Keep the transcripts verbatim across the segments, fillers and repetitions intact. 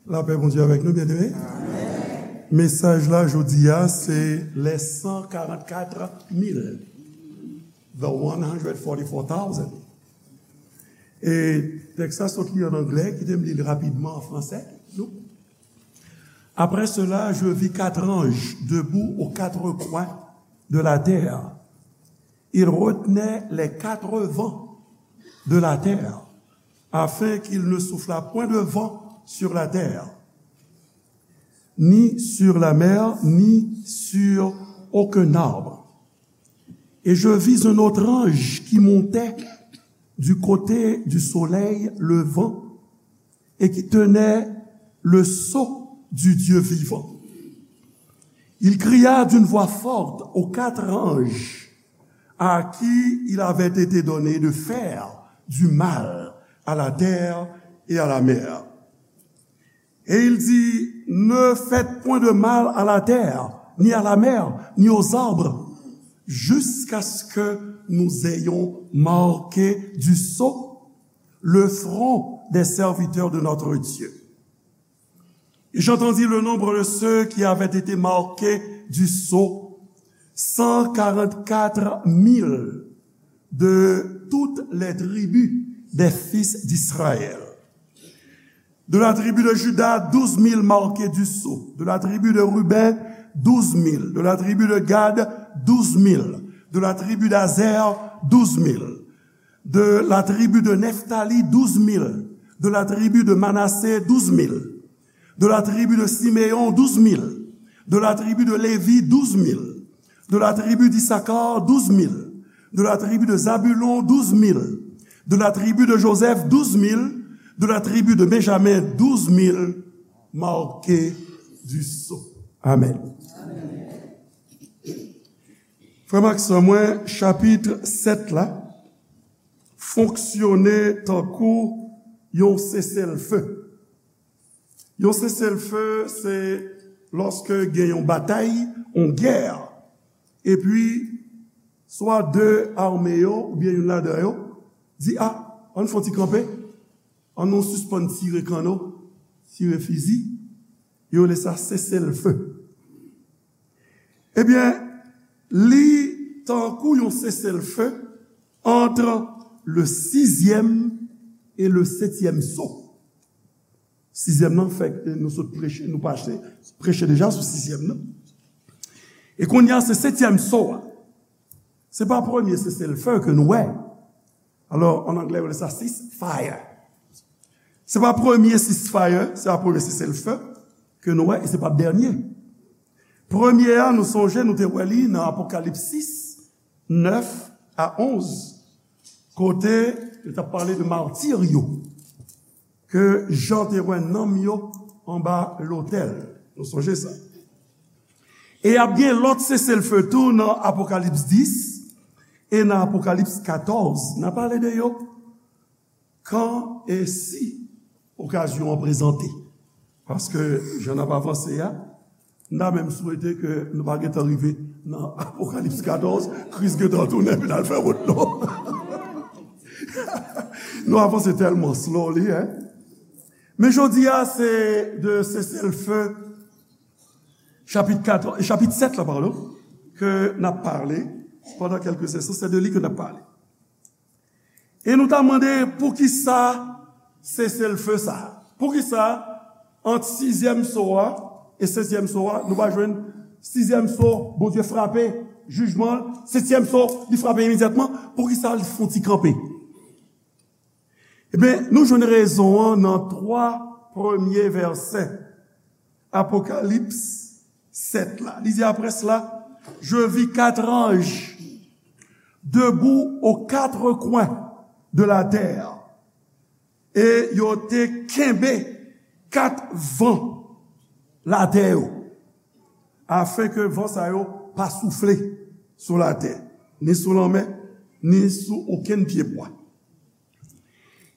Lapè Bondye avèk nou, byeneme. Mesaj la jodi a, se les cent quarante-quatre mille, the one hundred forty-four thousand. E tèks la sot li an anglè, kite m li l rapidman an fransè. Nou. Après cela, je vis quatre anges debout aux quatre coins de la terre. Ils retenaient les quatre vents de la terre, afin qu'il ne soufflât point de vent sur la terre, ni sur la mer, ni sur aucun arbre. Et je vis un autre ange qui montait du côté du soleil levant et qui tenait le sceau du Dieu vivant. Il cria d'une voix forte aux quatre anges à qui il avait été donné de faire du mal à la terre et à la mer. Et il dit, ne faites point de mal à la terre, ni à la mer, ni aux arbres, jusqu'à ce que nous ayons marqué du sceau le front des serviteurs de notre Dieu. Et j'entendis le nombre de ceux qui avaient été marqués du sceau, cent quarante-quatre mille de toutes les tribus des fils d'Israël. De la tribu de Juda, douze mille marqués du sceau. De la tribu de Ruben, douze mille. De la tribu de Gad, douze mille. De la tribu d'Azer, douze mille. De la tribu de Nephtali, douze mille. De la tribu de Manassé, douze mille. De la tribu de Siméon, douze mille. De la tribu de Lévi, douze mille. De la tribu d'Issachar, douze mille. De la tribu de Zabulon, douze mille. De la tribu de Joseph, douze mille. De la tribu de Benjamin, douze mille marqués du sceau. Amen. Frè m ak sè mwen, chapit sèt la fonksyone tankou yon seselfe. Yon seselfe, se lòske gen yon batay, yon gè, epi swa de ame yo, oubyen youn ladan yo, di, a, ann fè yon ti kanpe, ann nou sispann tire kanno, tire fizi, yo rele sa seselfe. Ebyen, li tankou yon seselfe ant le sizyèm e le setyèm so. Sizyèm nan, fèk nou sot preche, nou pase, preche deja sou sizyèm nan. E kounye a, se setyèm so a. Se pa premye seselfe ke nou wè. Alò, an anglè, yo rele sa ceasefire. Se pa premye ceasefire, se pa premye seselfe ke nou wè, e se pa dènye. Premye a, nou sonje, nou te wè li nan Apokalips sis, nèf a onz, kote yo t ap pale de matir yo, ke Jan te wè nanm yo anba lotèl. Nou sonje sa. E ap gen lòt seselfe tou nan Apokalips dis e nan Apokalips katòz. N a pale de yo kan e si okazyon an prezante. Paske jan n ap avanse a, n ta menm swete ke nou pa gentan rive nan Apokalips katòz, Kris gentan tounen epi n al fè wout nou. Nou avanse tèlman slowly, hein? Men jodi a, se de seselfe, chapit kat, chapit sèt la, padon, ke n ap pale pandan kèlke sesyon, se de li ke n ap pale. E nou ta mande poukisa seselfe sa? Poukisa ant sizyèm so a e setyèm so a, nou pa jwenn sizyèm so, Bondye frape, jijman, setyèm so, li frape imedyatman? Poukisa li fè yon ti kanpe? Ebyen, nou jwenn rezon an nan twa premye vèsè Apokalips sèt la. Li di, après cela, je vis quatre anges debout aux quatre coins de la terre. E yo te kenbe kat van latè yo, afin ke van sa yo pa soufle sou latè, ni sou lanmè, ni sou okenn pyebwa.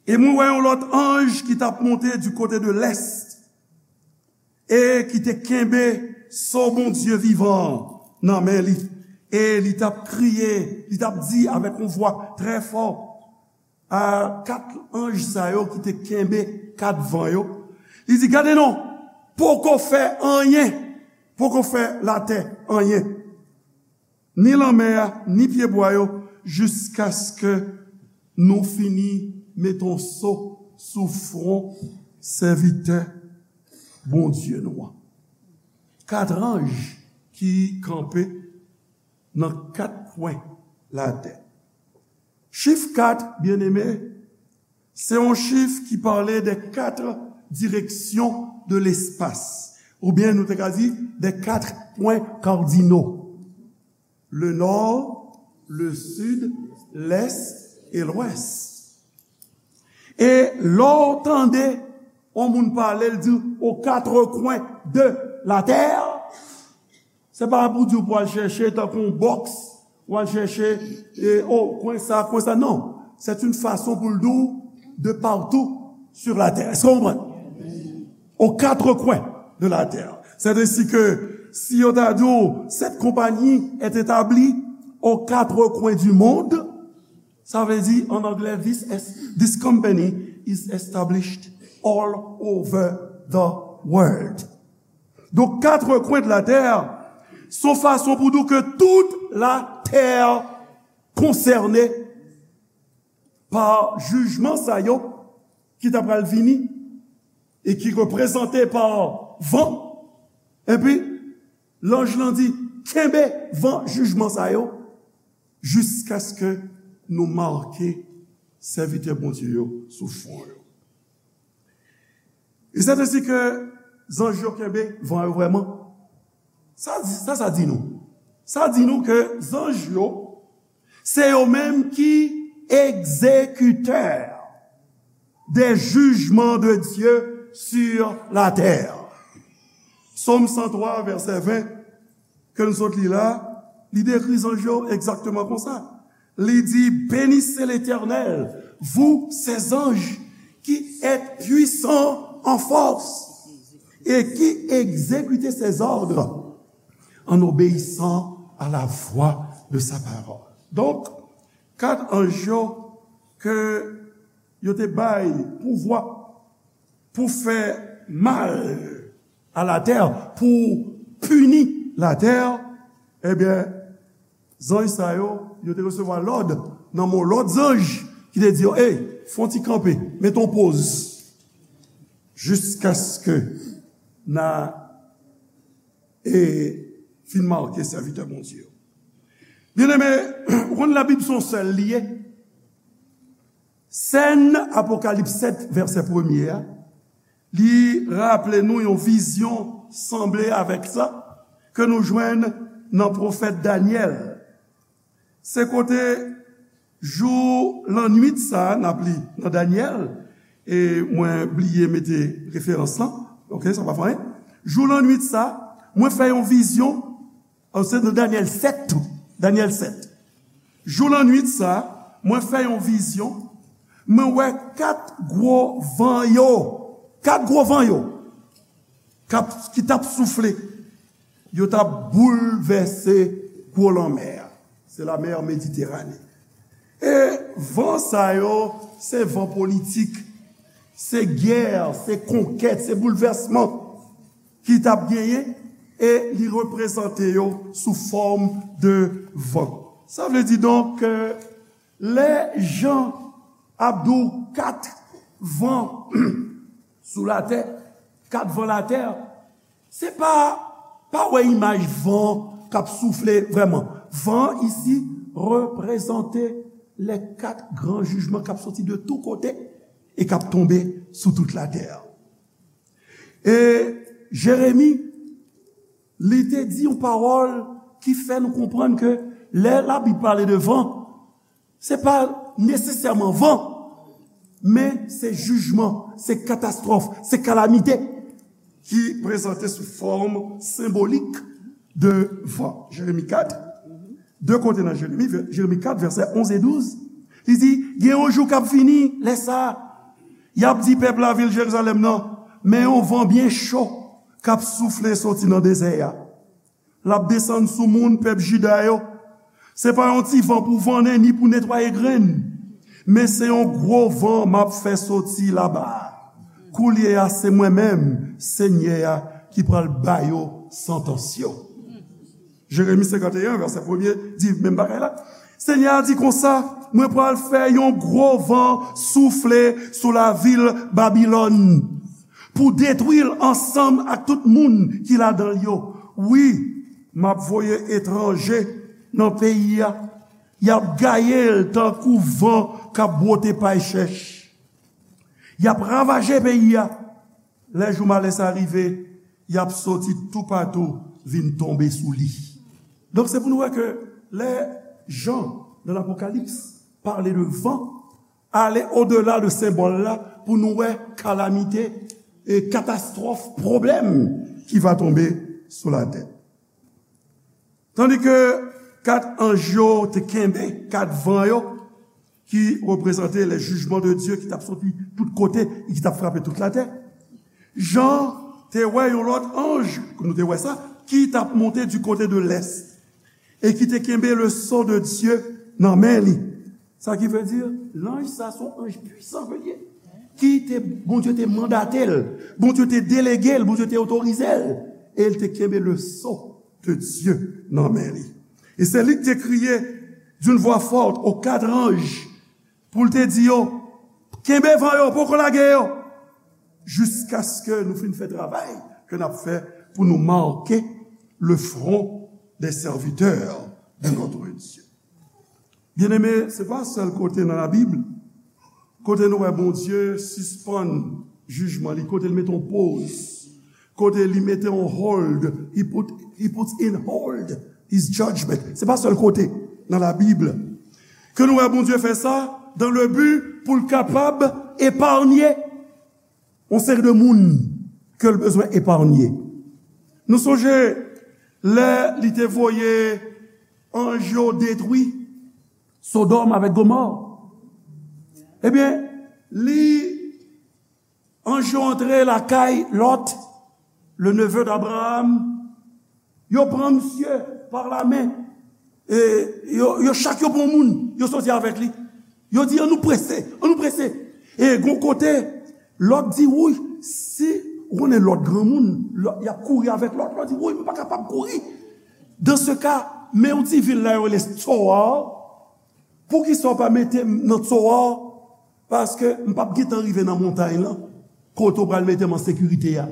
E mwen wè yon lòt anj ki t ap monte du kote de lès, e ki te kenbe so Bondye vivan an nan men li, e li t ap kriye, li t ap di avèk yon vwa trè fò a kat anj sa yo ki te kenbe kat van yo, Li di, gade non, poko fè anyen, poko fè latè anyen, ni lanmè a, ni pyebwa yo, jiskaske nou fini met yon so sou fwon sèvitè Bondye nou an. Kat anj ki kanpe nan kat kwen latè. Chif kat, byeneme, se yon chif ki pale de kat direksyon de lespas, oubyen nou te ka di de kat pwen kardino. Le nò, le sid, lès e lwès. E lè w tande yon moun pale, l di aux quatre coins de la terre, se pa pou di w pou al chèche tankou yon bòks, ou al chèche, e, o, kwen sa, kwen sa, non. C'est une façon pou l di w de partout sur la terre. Èske w konprann? Aux quatre coins de la terre. C'est ainsi que si yo ta di w, cette compagnie est établie aux quatre coins du monde, sa vle di, an anglè, this, es- this company is established all over the world. Donk, quatre coins de la terre, se yon fason pou di w ke tout latè konsène pa jijman sa yo ki ta pral vini e ki reprezante pa van. Epi, lanj lan di, kenbe van jijman sa yo jiskaske nou make sèvitè Bondye yo sou fwon yo. E se te si ke zanj yo kenbe van yo vrèman. Sa, sa, sa di nou? Sa di nou ke zanj yo, se yo menm ki egzekitè des jugements de Dieu sur la terre. Sòm san twa, vèsè ven, ke n sot li la, li dekri zanj yo egzakteman konsa. Li di, bénissez l'Éternel, vous ses anges, qui êtes puissants en force et qui exécutez ses ordres en obéissant à la voix de sa parole. Donk, kat anj yo ke yo te bay pouvwa pou fè mal a latè, pou pini latè, ebyen, zanj sa yo, yo te resevwa lòd nan men lòt zanj ki te di yo, ey, fè yon ti kanpe, mete yon poz, jiskaske n a, e, fin make sèvitè Bondye yo. Byeneme, ou konn Labib se yon sèl li ye. Sèn Apokalips sèt, vèsè premye a, li raple nou yon vizyon sanble avèk sa ke nou jwenn nan pwofèt Danyèl. Se kote jou lannwit sa a, n ap li nan Danyèl, e mwen bliye mete referans lan, oke, sa pa fè anyen. Jou lannwit sa a, mwen fè yon vizyon, an, se nan Danyèl sèt tou, Danyèl sèt. Jou lannwit sa a, mwen fè yon vizyon, mwen wè kat gwo van yo, kat gwo van yo, k ap, ki t ap soufle, yo t ap boulvèse gwo lanmè a. Se lamè Mediterane. E van sa yo, se van politik, se gè, se konkèt, se boulvèsman ki t ap genyen, e li reprezante yo sou fòm de van. Sa vle di donk ke lè Jan ap di w kat van sou latè, kat van latè, se pa, pa wè imaj van k ap soufle vrèman. Van isi reprezante les quatre grands jugements k ap soti de tou kote e k ap tonbe sou tout latè. E Jeremi, li te di yon pawòl ki fè nou konprann ke lè Labib pale de van, se pa nesesèman van, men se jijman, se katastwòf, se kalamite ki prezante sou fòm senbolik de van. Jeremi kat, de kote nan Jeremi, vè-, Jeremi kat, vèsè onz e douz, li di, gen yon jou k ap vini, lè sa a, y ap di pèp lavil Jerizalèm nan, men yon van byen cho k ap soufle soti nan dezè a. L ap desann sou moun pèp Jida yo. Se pa yon ti van pou vannen ni pou netwaye grenn, men se yon gwo van m ap fè soti laba a. Koulye a, se mwen menm, Senyè a, ki pral ba yo santans yo. Jeremi senkanteyen, vèsè premye, di menm bagay la. Senyè a di konsa, mwen pral fè yon gwo van soufle sou lavil Babilòn pou detwi l ansanm ak tout moun ki ladan l yo. Wi, m ap voye etranje nan peyi a. Y ap gaye l tankou van k ap bwote pay chèch. Y ap ravaje peyi a. Lè jou malè sa rive, y ap soti toupatou vin tonbe sou li. Donk, se pou nou wè ke lè Jan, nan Lapokalips, pale de van, ale odela de senbòl la pou nou wè kalamite e katastwòf, pwoblèm ki va tonbe sou latè. Tandike kat anj yo te kenbe kat van yo, ki reprezante les jugements de Dieu ki t ap soti tout kote e ki t ap frape tout latè. Jan te wè yon lòt anj, nou te wè sa, ki t ap monte du côté de l'est e ki te kenbe le sceau de Dieu nan men li. Sa ki vle di, lanj sa se yon anj pwisan ke l ye, ki te, Bondye te mandate l, Bondye te delege l, Bondye te otorize l, e l te kenbe le sceau de Dieu nan men li. E se li ki te kriye d'une voix forte aux quatre anges pou l te di yo, kenbe van yo, poko lage yo, jiskaske nou fin fè travay ke n ap fè pou nou make le front des serviteurs de notre Dieu. Byeneme, se pa sèl kote nan Labib kote nou wè Bondye sispann jijman li, kote l mete yon poz, kote li mete yon hold, he put, he puts in hold his judgment. Se pa sèl kote nan Labib ke nou wè Bondye fè sa dans le but pou l kapab eparnye yon seri de moun ke l bezwen eparnye. Nou sonje lè li te voye anj yo detwi Sodòm avèk Gomò. Ebyen, li, anj yo antre lakay Lòt, le neveu d'Abraham, yo pran misye pa lamen. E yo, yo chak yo pran moun, yo soti avèk li. Yo di, "An nou prese, an nou prese." E gon kote, Lòt di, "Woy, si ou konnen Lòt granmoun, Lòt, y ap kouri avèk Lòt." Lòt di, "Woy, m pa kapab kouri. Dans ce cas, men yon ti vil la yo rele Tsoar. Poukisa w pa mete m nan Tsoar? Paske m p ap gentan rive nan montay lan, kote w pral mete m an sekirite a."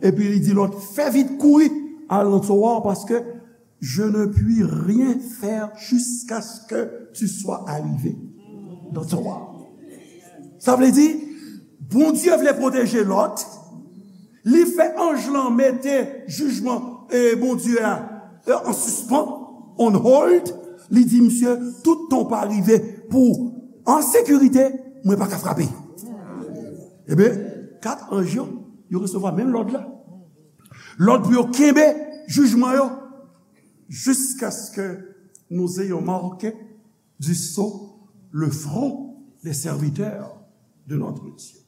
Epi li di Lòt, "Fè vit, kouri al nan Tsoar, paske je ne puis rien faire jusqu'à ce que tu sois arrivé dans Tsoar." Sa vle di, Bondye vle pwoteje Lòt, li fè anj lan mete jijman, e, Bondye a, e, an sispan, on hold. Li di misye, "Toutan w pa rive pou an sekirite, mwen pa ka frape." Ebyen, kat anj yo, yo resevwa menm lòd la. Lòd pou yo kenbe jijman yo, jiskaske nous ayons marqué du sceau le front des serviteurs de notre Dieu.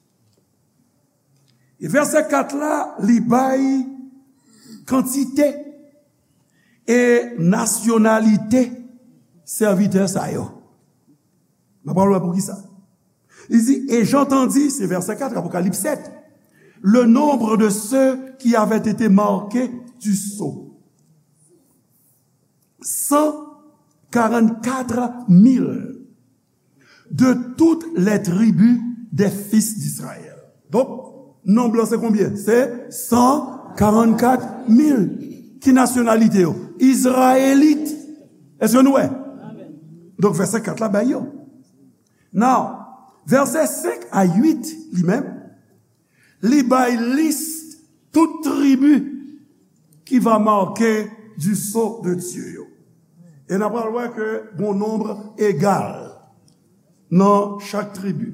E vèsè kat la, li bay kantite e nasyonalite sèvitè sa yo. N ap pral wè poukisa. Li di, "Et j'entendis," se vèsè kat, Apokalips sèt, "le nombre de ceux qui avaient été marqués du sceau. Cent quarante-quatre mille de toutes les tribus des fils d'Israël." Donk, nonb lan se konbyen? Se san karannkat mil. Ki nasyonalite yo? Izrayelit. Èske nou wè? Donk, vèsè kat la bay yo. Now, vèsè senk a uit, li menm, li bay lis tout tribi qui va marquer du sceau de Dieu yo. E n ap pral wè ke gon nonb egal nan chak tribi.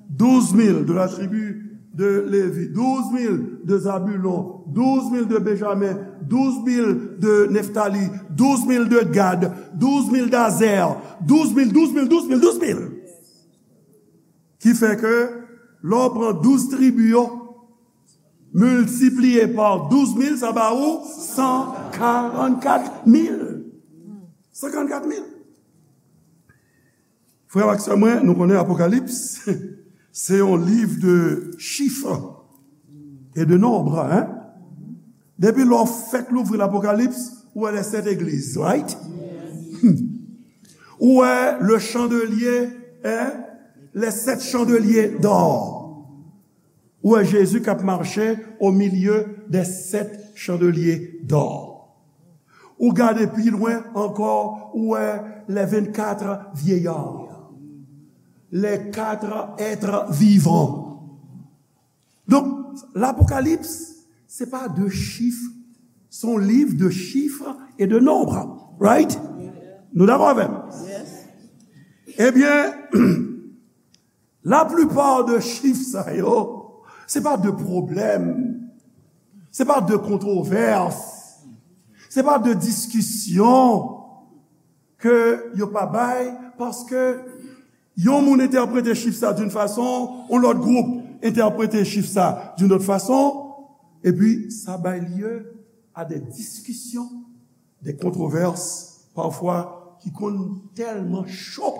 Douze mille de la tribu de Lévi, douze mille de Zabulon, douze mille de Benjamin, douze mille de Neftali, douze mille de Gad, douze mille d'Azer, douze mille, douze mille, douze mille, douze mille. Ki fè ke lè w pran douz tribi yo, miltipliye pa douz mil, sa ba ou san karannkat mil. San karannkat mil. Frè ak sè mwen, nou konnen Apokalips, se yon liv de chif. et de nombre, hein? Depi lè w fèk louvri Lapokalips, ou wè les sept églises, right? Ou wè le chandelier, hein? Les sept chandeliers d'or. Ou wè Jezi k ap mache au milieu des sept chandeliers d'or. Ou gade pi lwen ankò, ou wè les vingt-quatre vieillards, les quatre êtres vivants. Donk, Lapokalips, se pa de chif, se yon liv de chif e de nonb. Right? Nou dakò avè m? Ebyen, laplipa de chif sa yo, se pa de pwoblèm, se pa de kontwovès, se pa de diskisyon ke yo pa bay, paske yon moun entèprete chif sa d'une façon, yon lòt gwoup entèprete chif sa d'une autre façon, epi sa bay lye a de diskisyon, de kontwovès, pafwa ki konn tèlman cho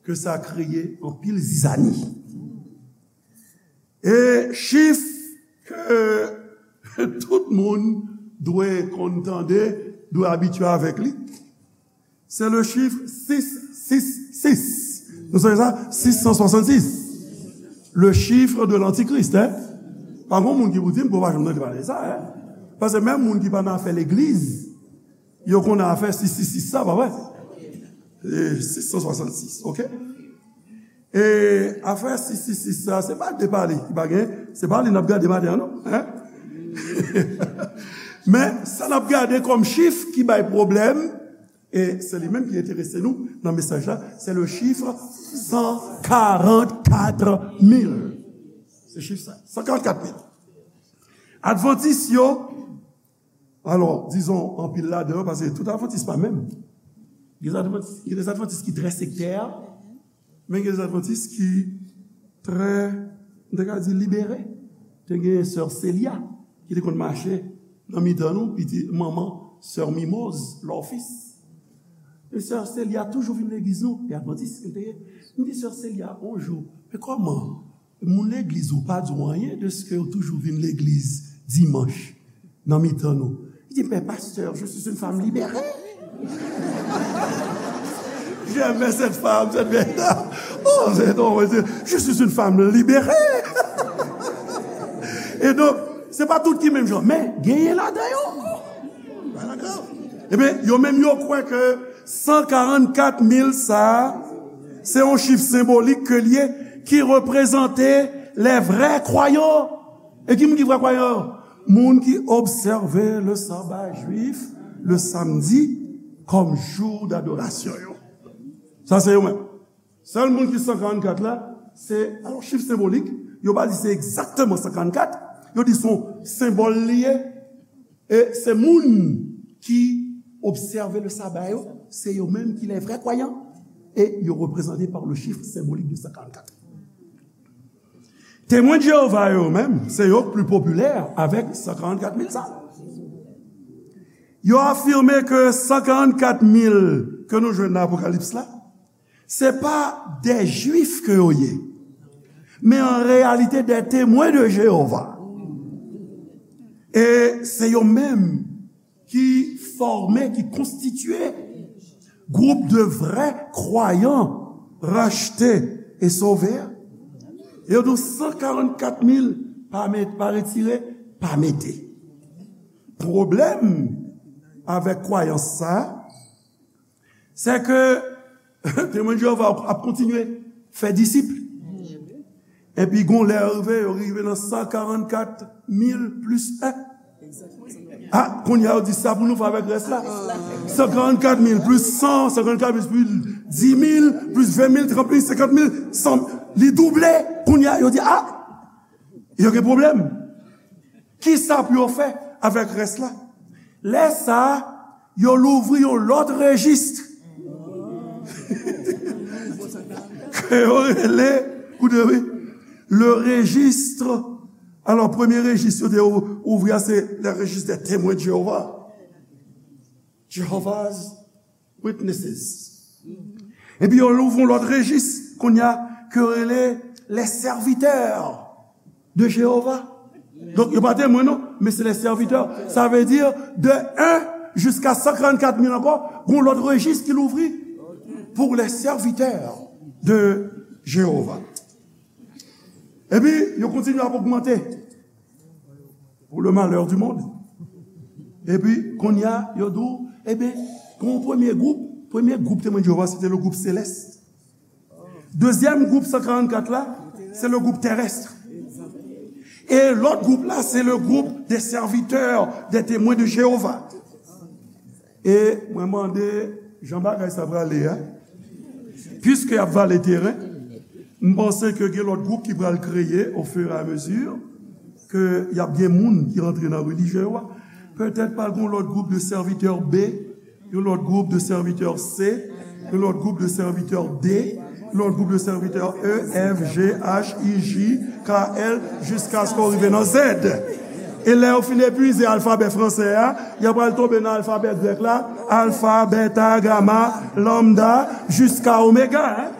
ke sa kreye anpil zizani. E chif ke tout moun dwe konn tande, dwe abitye avèk li, se le chif sis sis sis. Nou sonje sa? Sis san swasannsis. Le chiffre de l'antichrist, hein? Pa gen moun ki pou di m ke w pa janm tande pale de sa, hein? Paske menm moun ki pa nan afè legliz, yo konn afè sis sis sis sa, pa vre? E sis san swasannsis, oke? E afè sis sis sis sa, se pa de pale ki pa gen, se pa li n ap gade maten an, non, hein? Men, sa n ap gade kòm chif ki bay pwoblèm, e se li menm ki enterese nou nan mesaj la, se le chiffre san karannkat mil. Se chif sa, san karannkat mil. Advantis yo, alò, dizon, anpil ladan yo, paske tout advantis pa menm. Gen advantis, gen de advantis ki trè sektè, men gen de advantis ki trè, m te ka di, libere. Te gen sè Celia ki te konn mache nan mitan nou, piti manman sè Mimoz, Lòfis. E sè Celia toujou vin legliz nou, e advantis ke l te ye. M di sè Celia yon jou, men kòman moun legliz ou pa di w anyen dèske ou toujou vin legliz dimanch nan mitan nou? Li di, mais pasteur, je suis une femme libérée. J'aimais cette femme, cette vieille dame. Oh, c'est drôle, je suis une femme libérée. E donk, se pa tout ki menm jan, men genyen ladan yo. Ebyen, yo menm yo kwè ke san karannkat mil sa a, se yon chif senbolik ke l ye, ki reprezante les vrais croyants. E ki moun ki vrè kwayan yo? Moun ki obsève le saba jwif, le samdi, kòm jou dadorasyon yo. Sa se yo menm. Sèl moun ki san karannkat la, se, alò, chif senbolik, yo pa di se egzakteman san karannkat, yo di se yon senbòl li ye, e se moun ki obsève le saba yo, se yo menm ki les vrais croyants, e yo reprezante pa le chiffre symbolique de san karannkat. Temwen de Jewova yo menm, se yo k pli popilè avèk san karannkat mil sa. Yo afime ke san karannkat mil ke nou jwenn nan Apokalips la, se pa de Jwif ke yo ye, men an reyalite de Temwen de Jewova. E se yo menm ki fòme, ki konstitye gwoup de vrè kwayan rachte e sove a. E yo di w san karannkat mil pa met, pa retire, pa mete. Pwoblèm avèk kwayans sa a, se ke Temwen de Jewova ap kontinye fè disip. Epi gon lè yo rive, yo rive nan san karannkat mil plis en. A, kounye a yo di sa pou nou fè avèk rès la. San karannkat mil plis san, san karannkat mil plis dis mil, plis ven mil, trant mil, senkant mil, san, li double. Kounye a yo di, a, yo gen pwoblèm. Kisa pou yo fè avèk rès la? Lè sa a, yo louvri yon lòt rejis. Ke yo rele, koute wi, le registre. Alò, premye rejis yo te ou-, ouvri a, se le registre des Témoins de Jéhovah. Jehovah's Witnesses. Epi yo louvri yon lòt rejis, kounye a, ke yo rele les serviteurs de Jéhovah. Donk, yo pa temwen, non, men se les serviteurs. Sa vle di, de en jiska san karannkat mil ankò, gon lòt rejis ki louvri pour les serviteurs de Jéhovah. Epi, yo kontinye ap ogmante pour le malheur du monde. Epi, kounye a, yo di w, ebyen, gon premye gwoup, premye gwoup Temwen de Jewova, se te le gwoup selès. Dezyèm gwoup san karannkat la, se le gwoup terès. E lòt gwoup la, se le gwoup de sèvitè de Temwen de Jewova. E mwen mande jan bagay sa prale a, piske y ap vale teren, m panse ke gen lòt gwoup ki pral kreye au fur et à mesure ke y ap gen moun ki rantre nan relijyon yo a. Petèt pral gen lòt gwoup de sèvitè B, yon lòt gwoup de sèvitè C, yon lòt gwoup de sèvitè D, yon lòt gwoup de sèvitè E, F, G, H, I, J, K, L, jiskaske w rive nan Z. E lè yo fin epuize alfabè fransè a, y ap al tonbe nan alfabè grèk la, alfa, beta, gama, lambda, jiska omega, hein.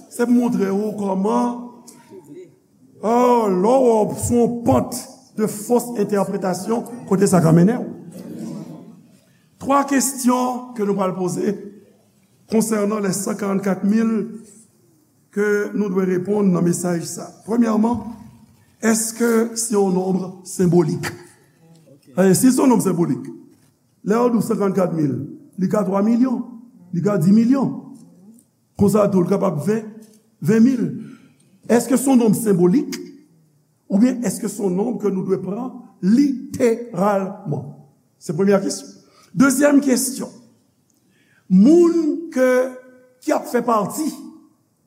Se pou montre w kòman, oh, lè w sou yon pant de fos entèpretasyon, kote sa ka mennen w. Twa kesyon ke nou pral poze konsènan les san karannkat mil ke nou dwe reponn nan mesaj sa. Premyèman, èske se yon nonb senbolik? E si se yon nonb senbolik, lè yo di w san karannkat mil, li ka twa milyon, li ka di milyon. Konsa tou, li kapab ven, ven mil. Èske se yon nonb senbolik? Oubyen èske se yon nonb ke nou dwe pran literalman? Se premyè kesyon. Dezyèm kesyon, moun ke, ki ap fè pati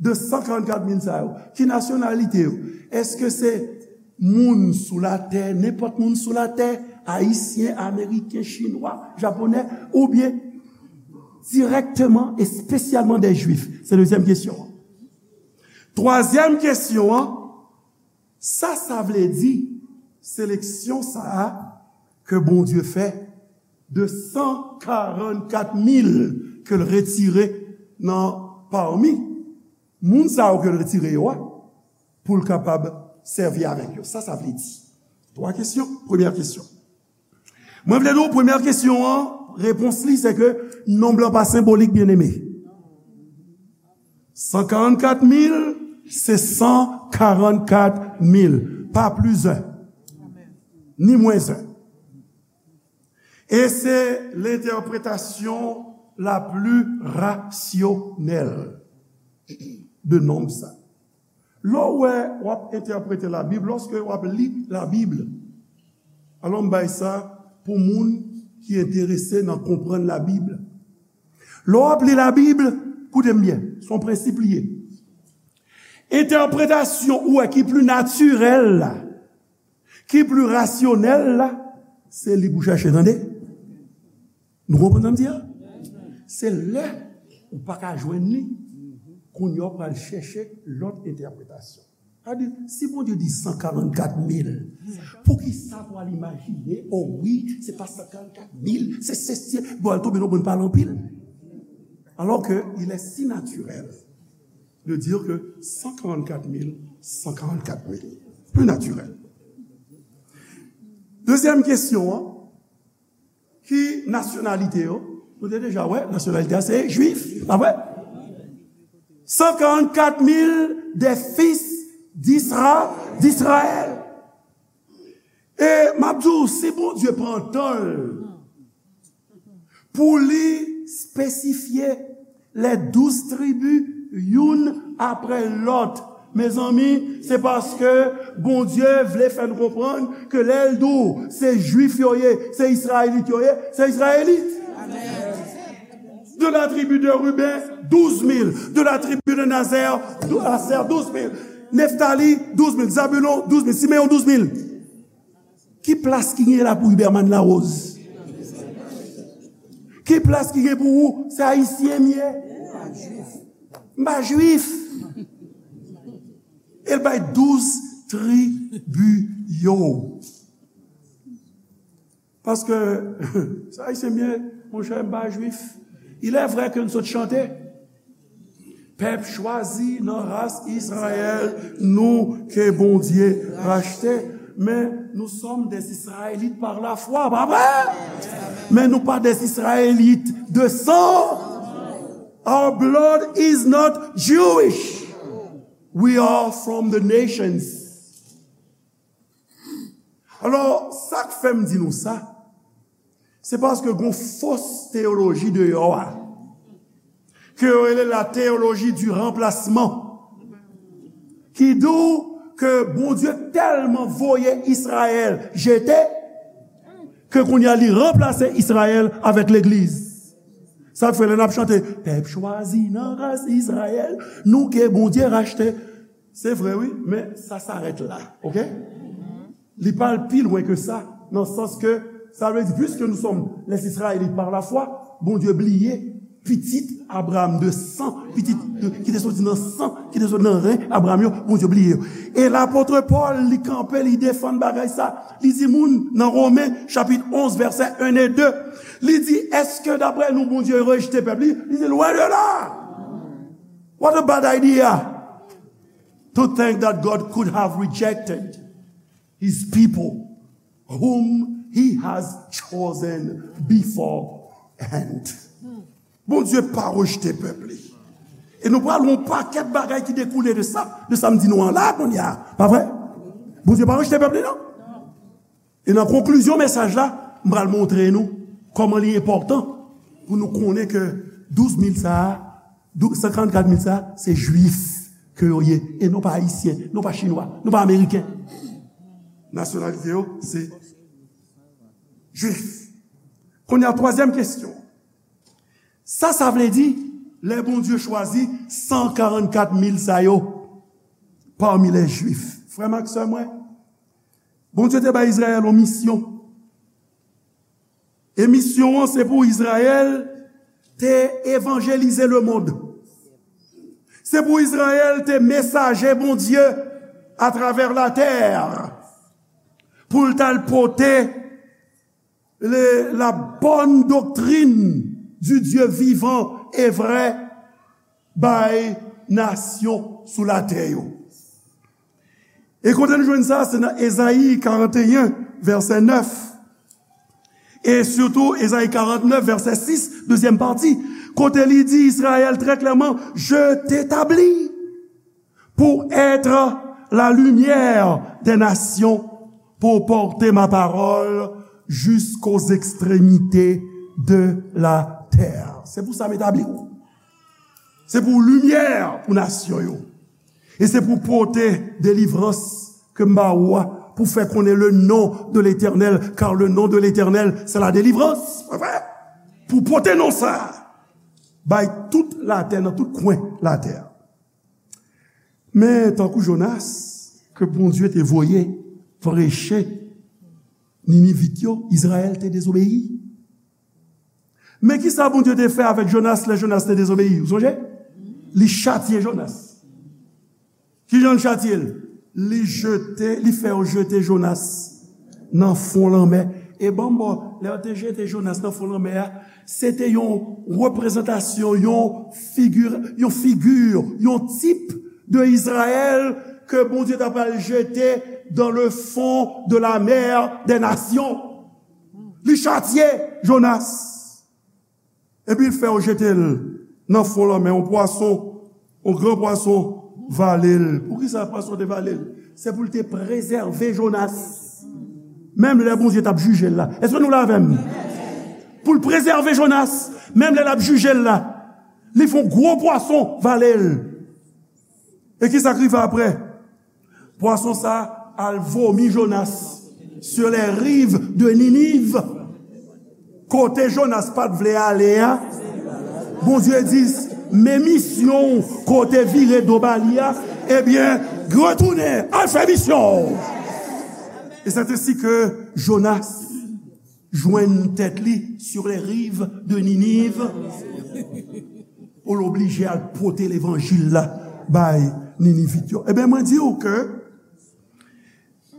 de san karannkat mil sa yo, ki nasyonalite yo? Èske se moun sou latè, nenpòt moun sou latè, ayisyen, ameriken, chinwa, japonè, oubyen dirèkteman, espesyalman de jwif? Se dezyèm kesyon an. Twazyèm kesyon an, sa sa vle di, seleksyon sa a ke Bondye fè de san karannkat mil ke l retire nan pami moun sa yo ke l retire yo a, pou l kapab sèvi avèk yo. Sa sa vle di? Twa kesyon. Premyè kesyon. Mwen vle di w, premyè kesyon an, repons li se ke nonb lan pa senbolik, byeneme. San karannkat mil, se san karannkat mil, pa plis en, ni mwens en. E se lentèpretasyon la pli rasyonèl de nonb sa. Lè w wè w ap entèprete Labib, lòske w ap li Labib, alò m bay sa pou moun ki enterese nan konprann Labib. Lè w ap li Labib, koute m byen, se yon prensip li ye. Entèpretasyon ou wè ki pli natirèl la, ki pli rasyonèl la, se li pou w chache, tande. Nou konprann sa m di a? Se lè ou pa ka jwenn li, kounye a w pral chèche lòt entèpretasyon. Sa di, si Bondye di san karannkat mil, poukisa pou al imajine, o wi, se pa san karannkat mil, se, se, se, bon, al tonbe nan bon pale anpil. Alors que il est si naturel de dire que san karannkat mil, san karannkat mil. Pli natirèl. Dezyèm kesyon an, ki nasyonalite yo? Nou te deja wè, nasyonalite a se jwif, pa vre? San karannkat mil des fils d'Isra-, d'Israël. E m ap di w, si Bondye pran tan l pou li espesifye les douze tribus youn apre lòt, mezanmi, se paske Bondye vle fè n konprann ke lè l di w se jwif yo ye, se izrayelit yo ye, se izrayelit. De la tribu de Ruben, douz mil. De la tribu de Nazer, dou-, Aser, douz mil. Neftali, douz mil. Zabulon, douz mil. Simeyon, douz mil. Ki plas ki gen la pou Huberman Larose? Ki plas ki gen pou ou? Se ayisyen m ye. M pa jwif. E l bay douz tribi yo. Paske, se ayisyen m ye, monchè, m pa jwif. Il est vrai ke n sot chante, pèp chwazi nan ras Izrayèl, nou ke Bondye rachte. Mais nous sommes des Israélites par la foi, pa vre? Mais nous pas des Israélites de sang. Our blood is not Jewish. We are from the nations. Alò, sa k fè m di nou sa, se paske gon fos teyoloji deyò a, ke yo rele la théologie du remplacement, ki di w ke Bondye tèlman voye Izrayèl jete, ke kounye a li ranplase Izrayèl avèk legliz. Sa k fè lè n ap chante, pèp chwazi nan ras Izrayèl, nou ke Bondye rachte. Se vre, wi, men sa s'arrête là, oke? Li pa al pi lwen ke sa, nan sans ke, sa vle di, puisque nous sommes les Israélites par la foi, Bondye bliye pitit Abraham de san, pitit de, ki te soti nan san, ki te soti nan ren Abraham yo, Bondye bliye yo. E lapot Pòl, li kanpe, li defann bagay sa. Li di moun nan Women, chapit onz, vèsè en e de, li di, èske daprè nou, Bondye rejte pèp li? Li di, loin de là! What a bad idea to think that God could have rejected his people whom he has chosen beforehand. Bondye pa rejte pèp li. E nou pral wè yon pakèt bagay ki dekoule de sa, de sa m di nou an la kounye a. Pa vre? Bondye pa rejte pèp li, non. E nan konklizyon mesaj la, m pral montre nou kòman li enpòtan pou nou konnen ke douz mil sa a, dou-, san karannkat mil sa a, se Jwif ke yo ye, e non pa Ayisyen, non pa Chinwa, non pa Ameriken. Nasyonalite yo, se Jwif. Kounye a, twazyèm kesyon. Sa sa vle di, lè Bondye chwazi san karannkat mil sa yo, parmi les Juifs? Frè m ak sè mwen, Bondye te bay Izrayèl yon misyon. E misyon an, se pou Izrayèl te evanjelize lemonn. Se pou Izrayèl te mesaje Bondye atravè latè, pou l t al pote le, la bonne doctrine du Dieu vivant et vrai bay nasyon sou latè yo. E kote nou jwenn sa? Se nan Ezayi karannteyen, vèsè nèf. E sitou Ezayi karantnèf, vèsè sis, dezyèm pati, kote li di Izrayèl trè klèman, je t'établis pour être la lumière des nations, pour porter ma parole jusqu'aux extrémités de la terre. Se pou sa m etabli w. Se pou w limyè pou nasyon yo. E se pou w pote delivrans ke m ba ou a, pou w fè konnen le nom de l'Éternel, car le nom de l'Éternel, c'est la délivrance. Pa vre? Pou w pote non sa a bay tout latè, nan tout kwen latè. Men, tankou Jonas, ke Bondye te voye preche Ninivit yo, Izrayèl te dezobeyi. Men ki sa Bondye te fè avèk Jonas lè Jonas te dezobeyi? Ou sonje? Li chatye Jonas. Ki jan l chatye l? Li jete, li fè yo jete Jonas nan fon lanmè. E ban m ba w, lè yo te jete Jonas nan fon lanmè a, se te yon reprezantasyon, yon figi, yon figi, yon tip de Izrayèl ke Bondye ta pral jete dans le fond de la mer des nations. Li chatye Jonas. Epi l fè yo jete l nan fon lanmè, yon pwason, yon gran pwason vale l. Poukisa pwason te vale l? Se pou l te prezève Jonas. Menm lè Bondye t ap jije l la. Èske nou la avè m? Pou l prezève Jonas, menm lè l ap jije l la, li fè yon gwo pwason vale l. E ki sa k rive apre? Pwason sa a al vomi Jonas sur les rives de Ninive. Kote Jonas pa t vle ale a, Bondye di, men misyon w kote vire do ba li a, ebyen, retounen, al fè misyon w. E c'est ainsi que Jonas jwenn tèt li sur les rives de Ninive, pou l oblije al pote levanjil la bay Ninivit yo. Ebyen, mwen di w ke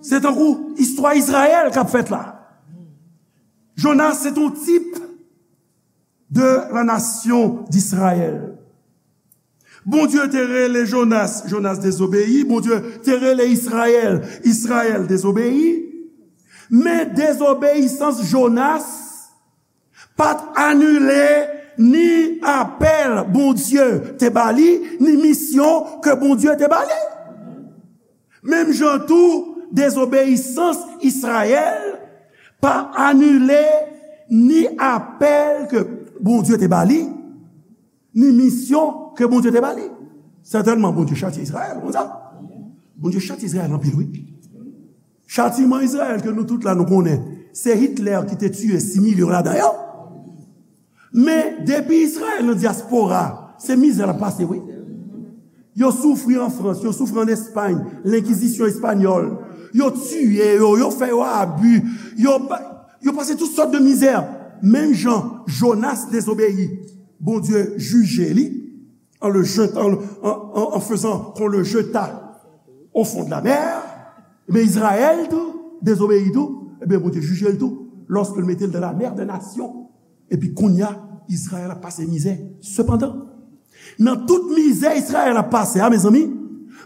se tankou istwa Izrayèl k ap fèt la. Jonas se t on tip de la nasyon d'Izrayèl. Bondye te rele Jonas, Jonas dezobeyi. Bondye te rele Izrayèl, Izrayèl dezobeyi. Men dezobeyisans Jonas pa t anile ni apèl Bondye te ba li, ni misyon ke Bondye te ba li. Menm jan tou, dezobeyisans Izrayèl pa anile ni apèl ke Bondye te ba li, ni misyon ke Bondye te ba li. Sètènman, Bondye chatye Izrayèl, konsa. Bondye chatye Izrayèl anpil, wi. Chatiman Izrayèl ke nou tout la nou konnen, se Hitler ki te tiye sis milyon ladan yo. Men, depi Izrayèl nan dyaspora, se mizè l ap pase, wi. Yo soufri an Frans, yo soufri an Espay, lenkizisyon espanyòl. Yo tiye yo, yo fè yo abi, yo, ba- yo pase tout sòt de mizè. Menm jan Jonas dezobeyi, Bondye jije li, en le jetant, en, en, en faisant qu'on le jeta au fond de la mer, ebyen, Izrayèl tou, dezobeyi tou, ebyen, Bondye jije l tou, lorsque l mete l dans la mer des nations. Epi kounye a, Izrayèl ap pase mizè. Sepandan, nan tout mizè Izrayèl ap pase a, mezanmi,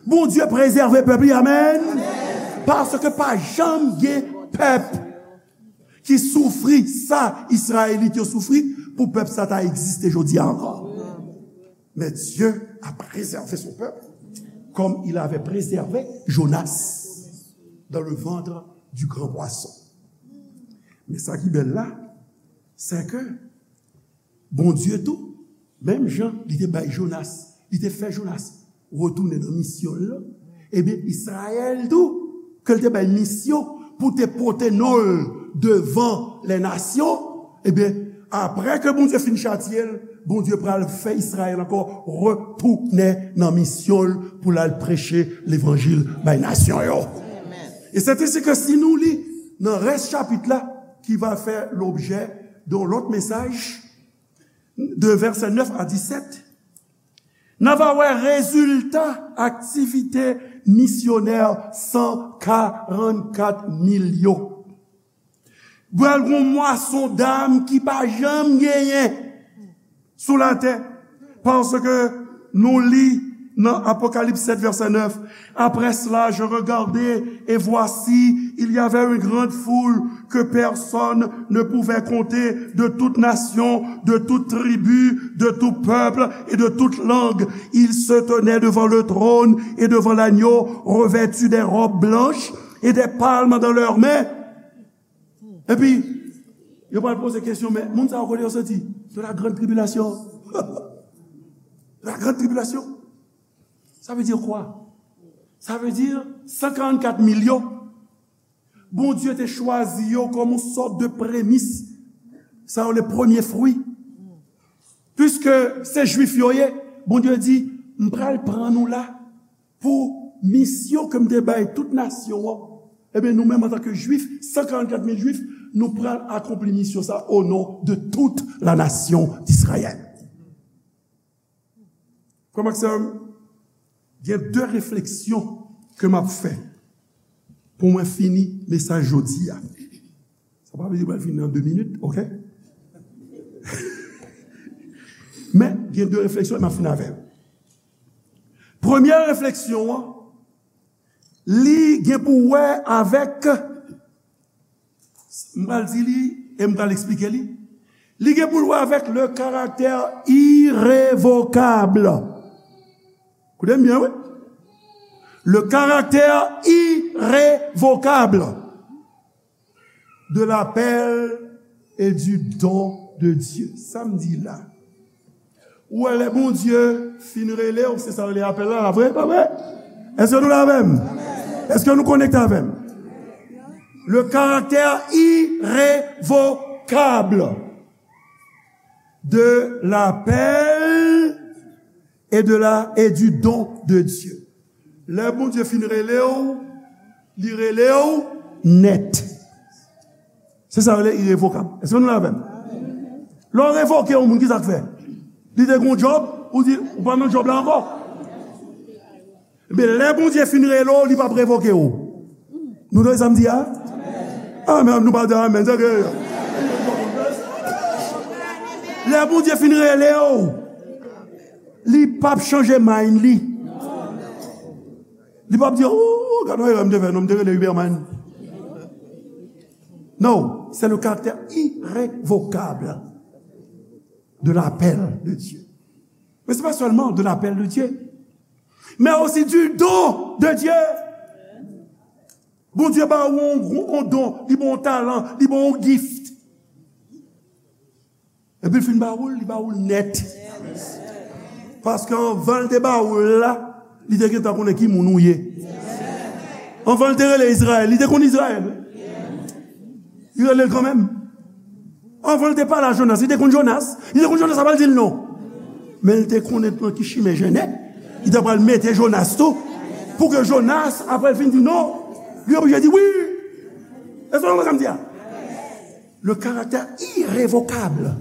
Bondye prezève pèp li, amèn. Paske pa janm gen pèp ki soufri sa Izrayelit yo soufri pou pèp sa ta egziste jodi a ankò. Mais Dieu a préservé son peuple comme il avait préservé Jonas dans le ventre du grand poisson. Men sa ki bèl la, se ke Bondye tou, menm jan li te bay Jonas, li te fè Jonas retounen nan misyon l lan, ebyen, Izrayèl tou, ke l te bay misyon pou te pote non l devan lè nasyon, ebyen, apre ke Bondye fin chatye l, Bondye pral fè Izrayèl ankò retounen nan misyon l pou l al preche levanjil bay nasyon yo. E se te si ke si nou li nan rès chapit la, ki va fè lobjè de yon lòt mesaj, de vèsè nèf a disèt, n a va wè rezilta aktivite misyonè san karannkat mil yo. Pral gon mwason dam ki pa janm genyen sou latè. Paske nou li nan Apokalips sèt vèsè nèf, après cela, je regardai, et voici, il y avait une grande foule que personne ne pouvait compter, de toute nation, de toute tribu, de tout peuple et de toute langue. Ils se tenaient devant le trône et devant l'agneau, revêtus des robes blanches et des palmes dans leurs mains. Epi, yo pral poze kesyon, men moun sa yo kote yo soti? De la grande tribulation. De la grande tribulation. Ça veut dire quoi? Sa vle di san karannkat mil yo, Bondye te chwazi yo kòm yon sòt de premis, sa yo le premye fwi. Piske se Jwif yo ye, Bondye di, m pral pran nou la pou misyon ke m te bay tout nasyon an. Ebyen, nou menm, antanke Jwif, san karannkat mil Jwif, nou pral akonpli misyon sa o non de tout la nasyon d'Izrayèl. Frè m ak sè m, gen de refleksyon ke m ap fè pou mwen fini mesaj jodi a. Sa pa vle di mwen fini nan de minit, oke? Men, gen de refleksyon, e m ap fini avè l. Premye refleksyon an, li gen pou wè avèk, m pral di li e m pral eksplike li. Li gen pou l wè avèk le caractère irrévocable. Koute m byen, wi. Le caractère irrévocable de l'appel et du don de Dieu. Sa m di la. Ou wè lè Bondye fin rele w, se sa rele apèl la, la vre, pa vre? Èske nou la avè m? Èske nou konekte avè m? Le caractère irrévocable de l'appel et de la, et du don de Dieu. Lè Bondye fin rele w, li rele w nèt. Se sa yo rele irevokab. Èske nou la avè m? Lè w revoke yon moun, ki sa k fè? Li te gen yon djòb, ou di, ou pa nan djòb la ankò. Men lè Bondye fin rele w, li p ap revoke w. Nou tande sa m di a? Amèn, nou pa di amèn, se ke lè Bondye fin rele w, Li p ap chanje mind li. Li p ap di, "Oh, gade yon erè m te fè, non, m te rele Huberman." Non, c'est le caractère irrévocable de l'appel de Dieu. Mais c'est pas seulement de l'appel de Dieu, mais aussi du don de Dieu. Bondye ba ou yon, yon don, li ba w yon talan, li ba w yon gift. Epi l fin ba ou l, li ba ou l nèt. Paske anvan l te ba ou l la, li te gentan konnen ki moun ou ye. Anvan l te rele Izrayèl, li te konn Izrayèl. Li rele l kanmenm. Anvan l te pale a Jonas, li te konn Jonas. Li te konn Jonas, sa pa l di l non. Men l te konnen nan ki chimen jennen. Li te pral mete Jonas tou. Pou ke Jonas, apre l fin di non, li oblije di wi. Èske w konprann sa m di a? Le caractère irrévocable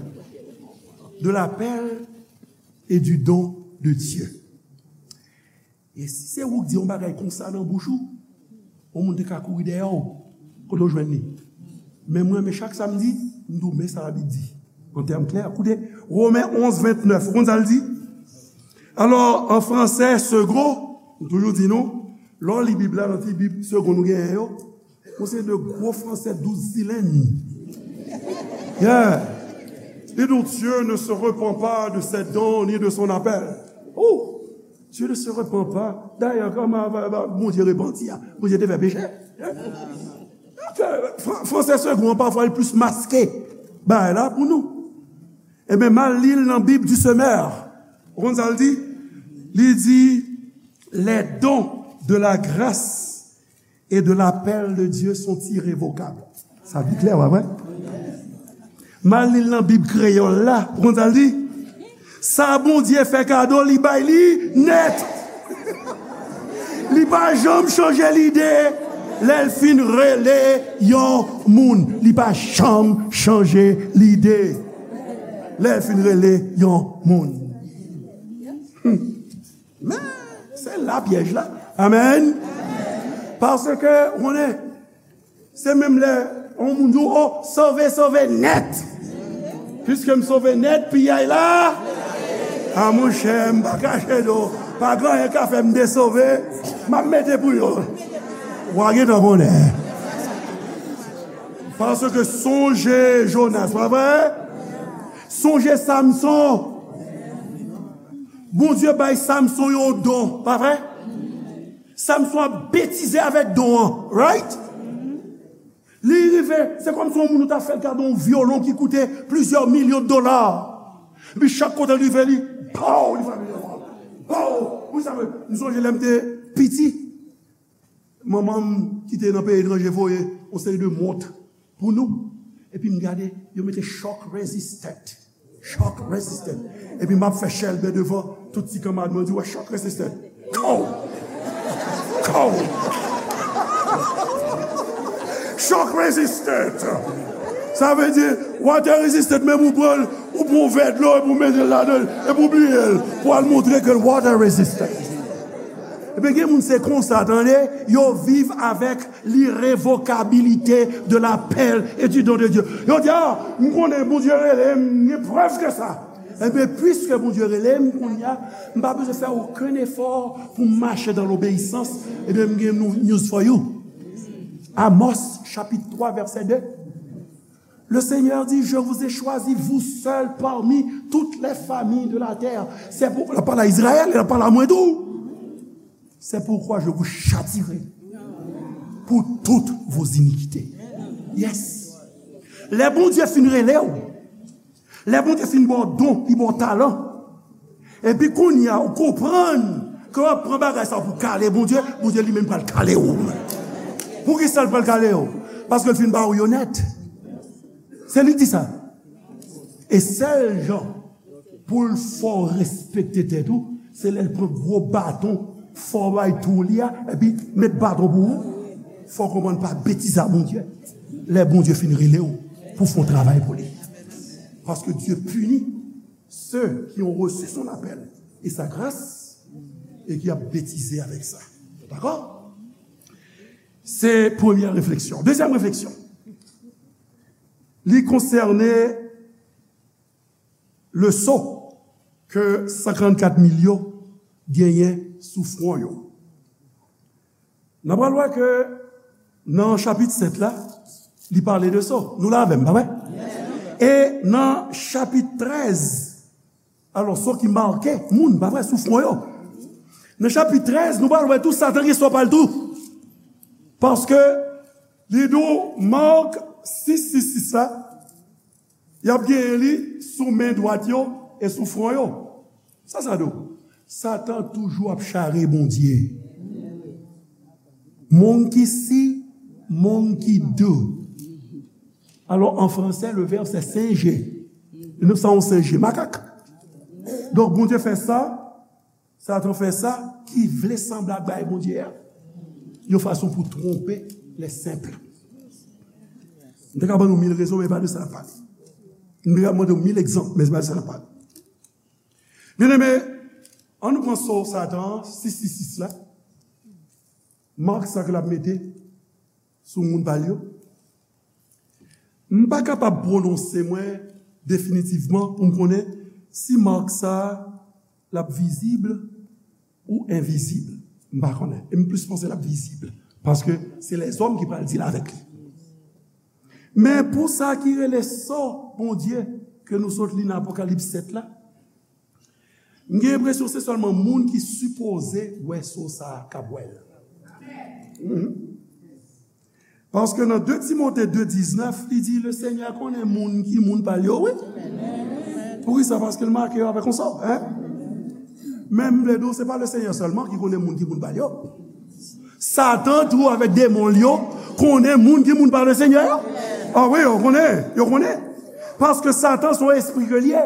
de l'appel et du don de Dieu. E si se ou k di yon bagay konsa nan bouch ou, yon moun te ka kouri dèyè w, kote w jwenn li? Men mwen, men chak samdi, m di w, men sa Labib di. An tèm klè, koute, Women onz ventnèf, ou konn sa l di? Alò, an fransè, segond, m toujou di nou, lè w li Bib la, nan ti Bib segond nou genyen yo, yon seri de gwo fransè douz silenn. Yeah. Et donc Dieu ne se repent pas de ses dons ni de son appel. Oh, Dieu ne se repent pas. Dayè, kòman Bondye repanti a? Bondye te fè peche. Fran- Fransè segond an, pafwa, li plis maske bagay la pou nou. Ebyen, m al li l nan Bib du Semeur. Ou konn sa l di? Li di, les dons de la grâce et de l'appel de Dieu sont irrévocables. Sa pi klè, pa vre? M al li l nan Bib kreyòl la. Ou konn sa l di? Sa Bondye fè kado, li bay li nèt. Li pa janm chanje lide lè l fin rele yon moun. Li pa janm chanje lide lè l fin rele yon moun. Hmm. Men, se la pyèj la. Amèn. Paske, ou konnen, se menm lè yon moun di w, "Oh, sove, sove nèt." Piske m sove nèt, piyay la. A monchè, m pa kache do. Pa gen anyen ka fè m desove. M ap mete pou yo. W a gentan konnen. Paske sonje Jonas, pa vre? Sonje Samson. Bondye bay Samson yon don, pa vre? Samson ap betize avèk don an, right? Li rive, se kòmsi yon moun ou ta fè l kado yon vyolon ki koute plizyè milyon dola. Epi chak kote l rive, li, pow, li frape vyolon an. Pow! Wi, sa vle, m sonje lè m te piti, manman m ki te nan peyi etranje voye yon seri de mont pou nou. Epi m gade, yo mete shock resistant. Shock resistant. Epi m ap fè chèlbè devan tout ti kanmarad mwen, di, "Wè shock resistant." Kow! Kow! Shock resistant. Sa vle di, water resistant, menm ou pran l, ou pran yon vè dlo, epi ou mete l ladan l, epi ou bliye l, pou al montre ke l water resistant. Ebyen, gen moun se konsa, tande, yo viv avèk l'irrévocabilité de l'appel et du don de Dieu. Yo di, "Ah, m konnen Bondye rele m, m gen prèv de sa." Ebyen, piske Bondye rele m, kounye a, m pa bezwen fè okenn efò pou m mache dans l'obéissance. Ebyen, m gen nou- news for you. Amos, chapit twa, vèsè de. Le Seigneur dit, "Je vous ai choisi, vous seuls, parmi toutes les familles de la terre." Se pou, l ap pale a Izrayèl, l ap pale a mwen tou. "C'est pourquoi je vous châtierai pour toutes vos iniquités." Yes. Lè Bondye fin rele w, lè Bondye fin ba w don, li ba w talan, epi kounye a, ou konprann ke w ap pran bagay sa pou kale Bondye, Bondye li menm pral kale w. Poukisa l pral kale w? Paske l fin ba w yo nèt. Se li ki di sa. E sèl jan pou l fè w respekte tèt ou, se lè l pran gwo baton, fè w bay tou li a, epi met baton pou ou. Fò w konprann pa betize a Bondye. Lè Bondye fin rele w pou fè yon travay pou li. Paske Dieu punit ceux qui ont reçu son appel et sa grâce et qui a bêtisé avec ça. Dakò? Se premyè refleksyon. Dezyèm refleksyon. Li konsène leson. ke san karannkat mil yo genyen sou fwon yo. N a pral wè ke nan chapit sèt la, li pale de so. Nou la avè m, pa vre? E nan chapit trèz, alò, so ki make moun, pa vre, sou fwon yo. Nan chapit trèz, nou pral wè tou Satan gen so pa l tou. Paske li di w Mak sis sis sis la, y ap genyen li sou men dwat yo e sou fwon yo. Sa sa di w? Satan toujou ap chare Bondye. Monkey see, monkey do. Alò, an fransè, le vèb se singe. Nou sa yon singe, makak. Donk, Bondye fè sa, Satan fè sa ki vle sanble ak bagay Bondye a, yon fason pou twonpe les simples. M te ka ban nou mil rezon, men e pa de sa n ap pale. M te ka mande w mil egzanp, men se pa de sa n ap pale. Byeneme, ann nou pran so Satan an, sis sis sis la. Mak sa ke l ap mete sou moun pa l yo. M pa kapab pwononse mwen definitivman pou m konnen si mak sa a l ap vizib ou envizib. M pa konnen. E m plis panse l ap vizib. Paske se lèzòm ki pral deal avèk li. Men pou sa ki rele so Bondye ke nou sot li nan Apokalips sèt la, m gen enpresyon se sèlman moun ki sipoze wè so sa a k ap wè l. Mhm. Paske nan de Timote de diznèf, li di, Lesenyè konnen moun ki moun pa l yo, wi. Poukisa? Paske l make yo avèk yon so, en? Men m vle di w, se pa Lesenyè sèlman ki konnen moun ki moun pa l yo. Satan tou avèk demon l yo konnen moun ki moun pa Lesenyè yo. A wi, yo konnen, yo konnen. Paske Satan se yon espri ke l ye.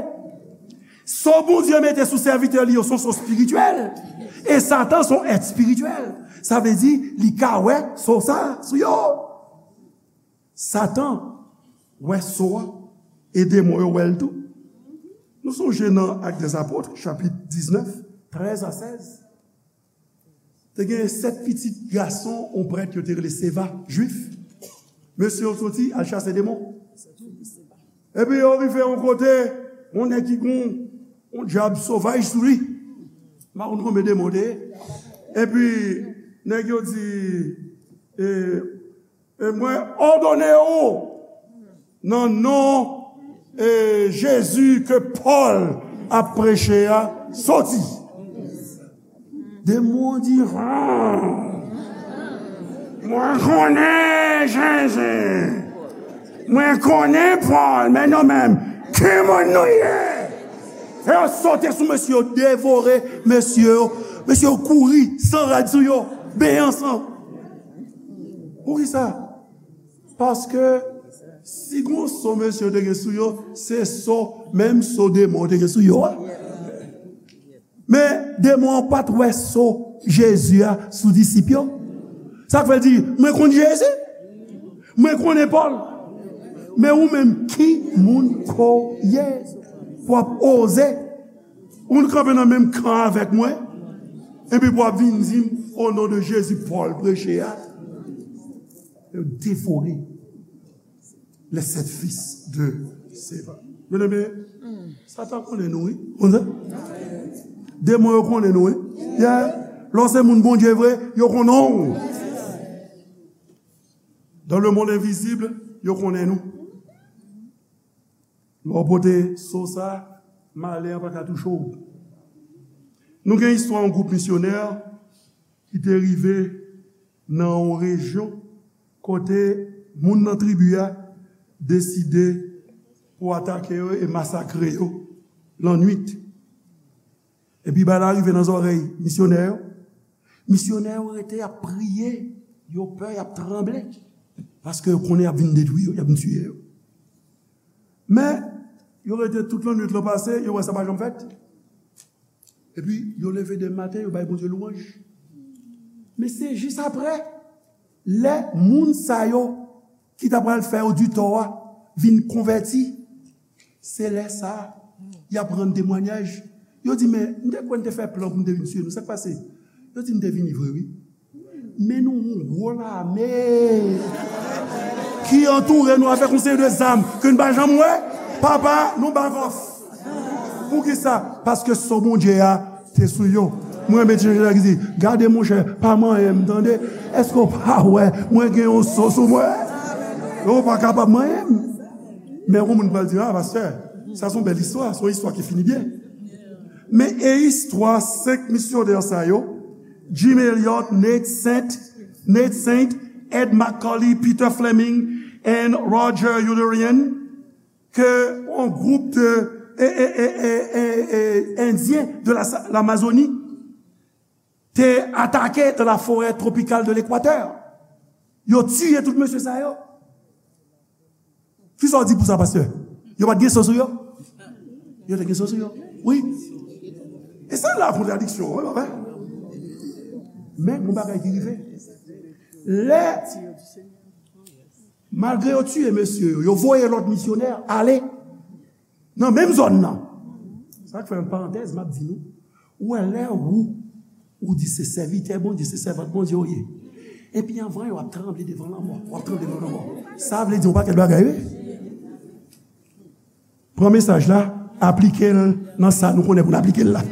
So Bondye mete sou sèvitè li yo se yon so espirityèl. E Satan se yon èt espirityèl. Sa vle di, li ka wè so sa sou yo. Satan wè so a, e demon yo wè l tou. Nou sonje nan Actes des Apôtres, chapit diznèf, trèz a sèz. Te gen sèt pitit gason yon prèt yo te rele Seva, jwif. Mesye yo soti al chase demon. Epi yo rive yon kote, yon nèg ki gon yon dyab sovaj sou li. M pa konn konbyen demon te ye. Epi nèg yo di, e, e mwen òdone ou nan non, e, Jezi ke Pòl ap preche a, soti. Demon di, "Mwen konnen Jezi. Mwen konnen Pòl, men nou menm, ki moun nou ye?" E yo sote sou mesye yo, devore mesye yo. Mesye yo kouri, san rad sou yo, benyen san. Poukisa? Paske si gon so mesye yo te gen sou yo, se so, menm so demon te gen sou yo a. Men demon an pa t wè so Jezi a sou disip yo. Sa k fè l di, "Mwen konn Jezi, mwen konnen Pòl, men ou menm ki moun ke w ye pou w ap oze ou kanpe nan menm kan avèk mwen, epi pou w ap vin di m, o non de Jezi, Pòl preche a?" Yo devore les sept fils de Sceva. Byeneme, Satan konnen nou, wi. Konn sa? Demon yo konnen nou, wi. Yeah. Lè w se moun Bondye vre, yo konnen w. Dans le monde invisible, yo konnen nou. Lè w pote so sa, malè an pa ka touche w. Nou gen istwa yon gwoup misyonè ki te rive nan yon rejyon kote moun nan tribi a deside pou atake yo e masakre yo lannwit. Epi bagay la rive nan zòrèy misyonè yo. Misyonè yo rete, y ap priye, yo pè, y ap tranble, paske yo konnen y ap vin detwi yo, y ap vin tiye yo. Men, yo rete tout lannwit lan pase, yo wè sa pa janm fèt. Epi, yo leve demen maten, yo bay Bondye lwanj. Men se jis apre, lè moun sa yo ki ta pral fè yo ditò a vin konvèti, se lè sa a, y ap rann temwayaj. Yo di, "Men, m te kwè n te fè plan pou n te vin tiye nou. Sa k pase?" Yo di, "N te vini vre, wi. Men nou yon gwo lame ki antoure nou avèk yon seri de zam ke n pa janm wè. Papa, nou back off." Poukisa? Paske so Bondye a te sou yo. Mwen renmen ti jan ki di, "Gade monchè, pa manyen m, tande. Èske w pa wè mwen gen yon so sou mwen?" Ou pa kapab manyen m. Men yon moun pral di, "A, pastè, sa se yon bèl istwa, se yon istwa ki fini byen." Men e istwa senk misyonè sa yo, Jim Elliot, Nate Saint, Nate Saint, Ed McCully, Peter Fleming, and Roger Youderian, ke yon gwoup de e, e, e, e, e, e, Endyen de la, Lamazoni te atake dans la forêt tropicale de l'Équateur. Yo tiye tout mesye sa yo. Kisa w di pou sa, pastè? Yo pa t gen so sou yo? Yo te gen so sou yo. Wi. E sa la kontradiksyon, wi, papa. Men, gon bagay ki rive. Lè, malgre yo tiye mesye yo, yo voye lòt misyonè ale nan menm zòn nan. Sa k fè yon parantèz, m ap di nou, ou wè lè ou, ou di se sèvitè Bondye, se sèvant Bondye ou ye. Epi anvan yo ap tranble devan lanmò, w ap tranble devan lanmò. Sa vle di yon pakèt bagay, wi. Pran mesaj la, aplike l nan sa nou konnen pou n aplike l la.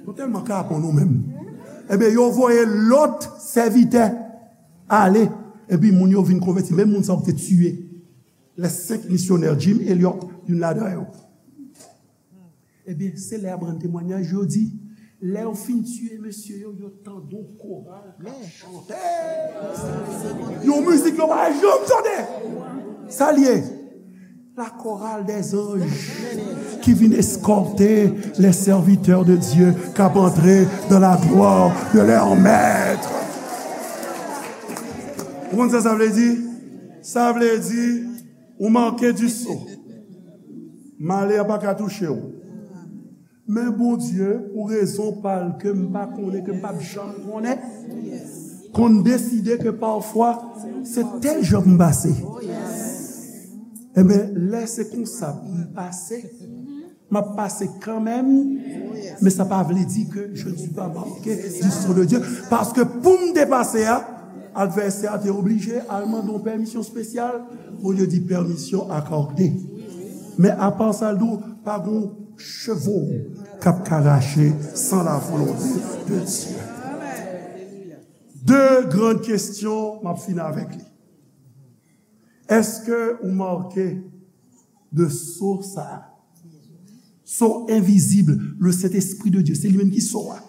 Nou tèlman kapon nou menm. Ebyen, yo voye lòt sèvitè ale, epi moun yo vin konvèti, menm moun sa yo ki te tiye. Les senk misyonè, Jim Elliot, youn ladan yo. Ebyen, se lè y ap rann temwayaj, yo di, lè yo fin tiye mesye yo, yo tande yon koral k ap chante. Yon mizik yo pa janm tande. Sa l ye? La chorale des anges qui vient escorter les serviteurs de Dieu k ap antre dans la gloire de leur maître. Ou konn sa sa vle di? Sa vle di, ou manke di so. Malè a pa ka touche w. Men Bondye, pou rezon pa l ke m pa konnen, ke m p ap janm konnen, konn deside ke pafwa, se tèl jan pou m pase. Ebyen, lè se konsa pou m pase, m ap pase kanmenm, men sa pa vle di ke je ne suis pas marqué du sceau de Dieu. Paske pou m te pase a, advèsè a te oblije al mande yon pèmisyon espesyal, Bondye di pèmisyon akòde. Men apa sa, l di w, pa gon chevo k ap ka rache san la volonte de Dye. De grann kesyon, m ap fini avèk li. Èske ou make de so sa a? So envizib, le Saint-Esprit de Dieu, se li menm ki so a.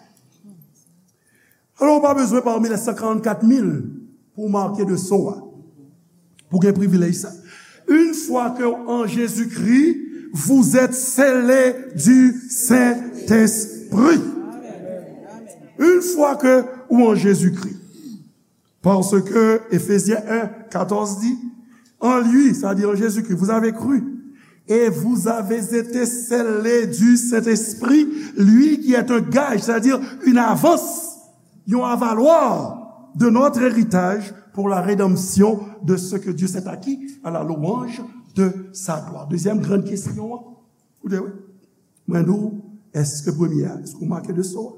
Alò, ou pa bezwen pami les cent quarante-quatre mille pou w make de so a, pou w gen privilèj sa. Une fois que en Jésus-Christ, vous êtes scellés du Saint-Esprit. Une fois que ou en Jésus-Christ. Parce que Éphésiens un, quatorze dit, en lui, c'est-à-dire en Jésus-Christ, vous avez cru, et vous avez été scellés du Saint-Esprit, lui qui est un gage, c'est-à-dire une avance, yon avalwa de notre héritage pour la rédemption de ce que Dieu s'est acquis à la louange de sa gloire. Dezyèm grann kesyon an, koute wi, mwen di w, èske premye a, èske w make de so a?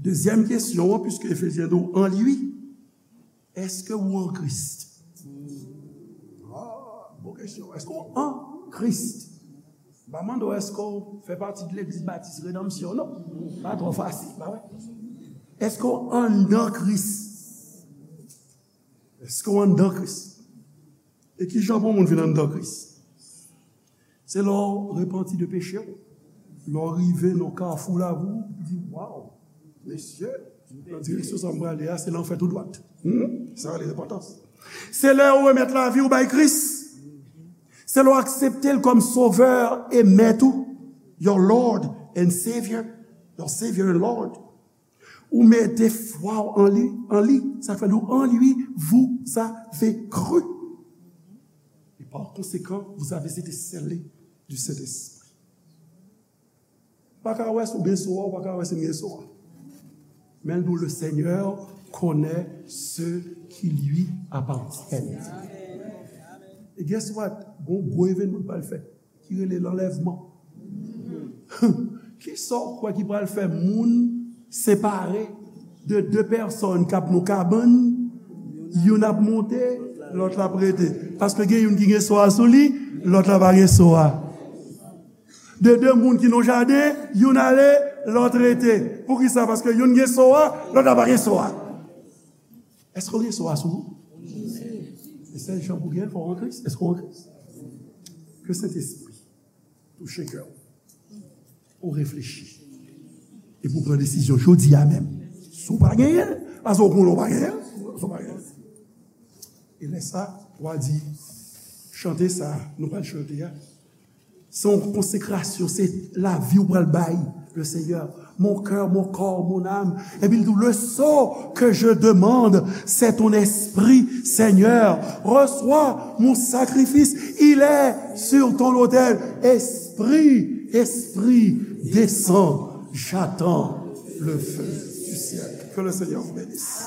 Dezyèm kesyon an, piske Efezyen di w an li, èske ou an Kris? Ah, bon kesyon. Èske ou an Kris? M pa mande w èske w fè pati de Legliz Batis Redanmsyon, non. Pa twò fasil, pa vre? Èske w anndan Kris? Èske w anndan Kris? E ki jan pou yon moun vin anndan Kris? Se lè w repanti de peche w. Lè w rive nan kafou la, ou di, "Waw, mesye, nan direksyon sa m prale a, se lanfè tou dwat." Hmm? Sa rele repantans. Se lè w remèt lavi w bay Kris. Se lè w aksepte l kòm Sovè e Mèt ou, your Lord and Savior, your Savior and Lord. Ou mete fwa w an li, an li. Sa fè nou, en lui, vous avez cru. Et par conséquent, vous avez été scellés du Saint-Esprit. Pa ka wè si w gen so a, ou pa ka wè si m gen so a. Men l di w, le Seigneur connaît ceux qui lui appartiennent. E guess what? Gon gwo evènman k pral fèt ki rele lanlèvman. Kisa w kwè ki pral fè moun separe de de pèsòn k ap nan kabann, youn ap monte, lòt la ap rete? Paske gen youn ki gen so a sou li, lòt la pa gen so a. De de moun ki nan jaden, youn ale, lòt rete. Poukisa? Paske youn gen so a, lòt la pa gen so a. Èske w gen so a sou ou? E sèl jan pou gen l, fò w an Kris. Èske w an Kris? Ke Sentespri touche kè w, pou w reflechi, epi w pran desizyon jodi a menm. Si w pa genyen l, paske w konnen w pa genyen l, si w pa genyen l. E lè sa, w a di, chante sa, nou pral chante a, se yon konsekrasyon, se lavi w pral bay le Seigneur. Mon cœur, mon corps, mon âme. Epi l di, le saut que je demande, c'est ton esprit, Seigneur. Reçois mon sacrifice, il est sur ton autel. Esprit, Esprit, descends, j'attends le feu du ciel. Que le Seigneur vous bénisse.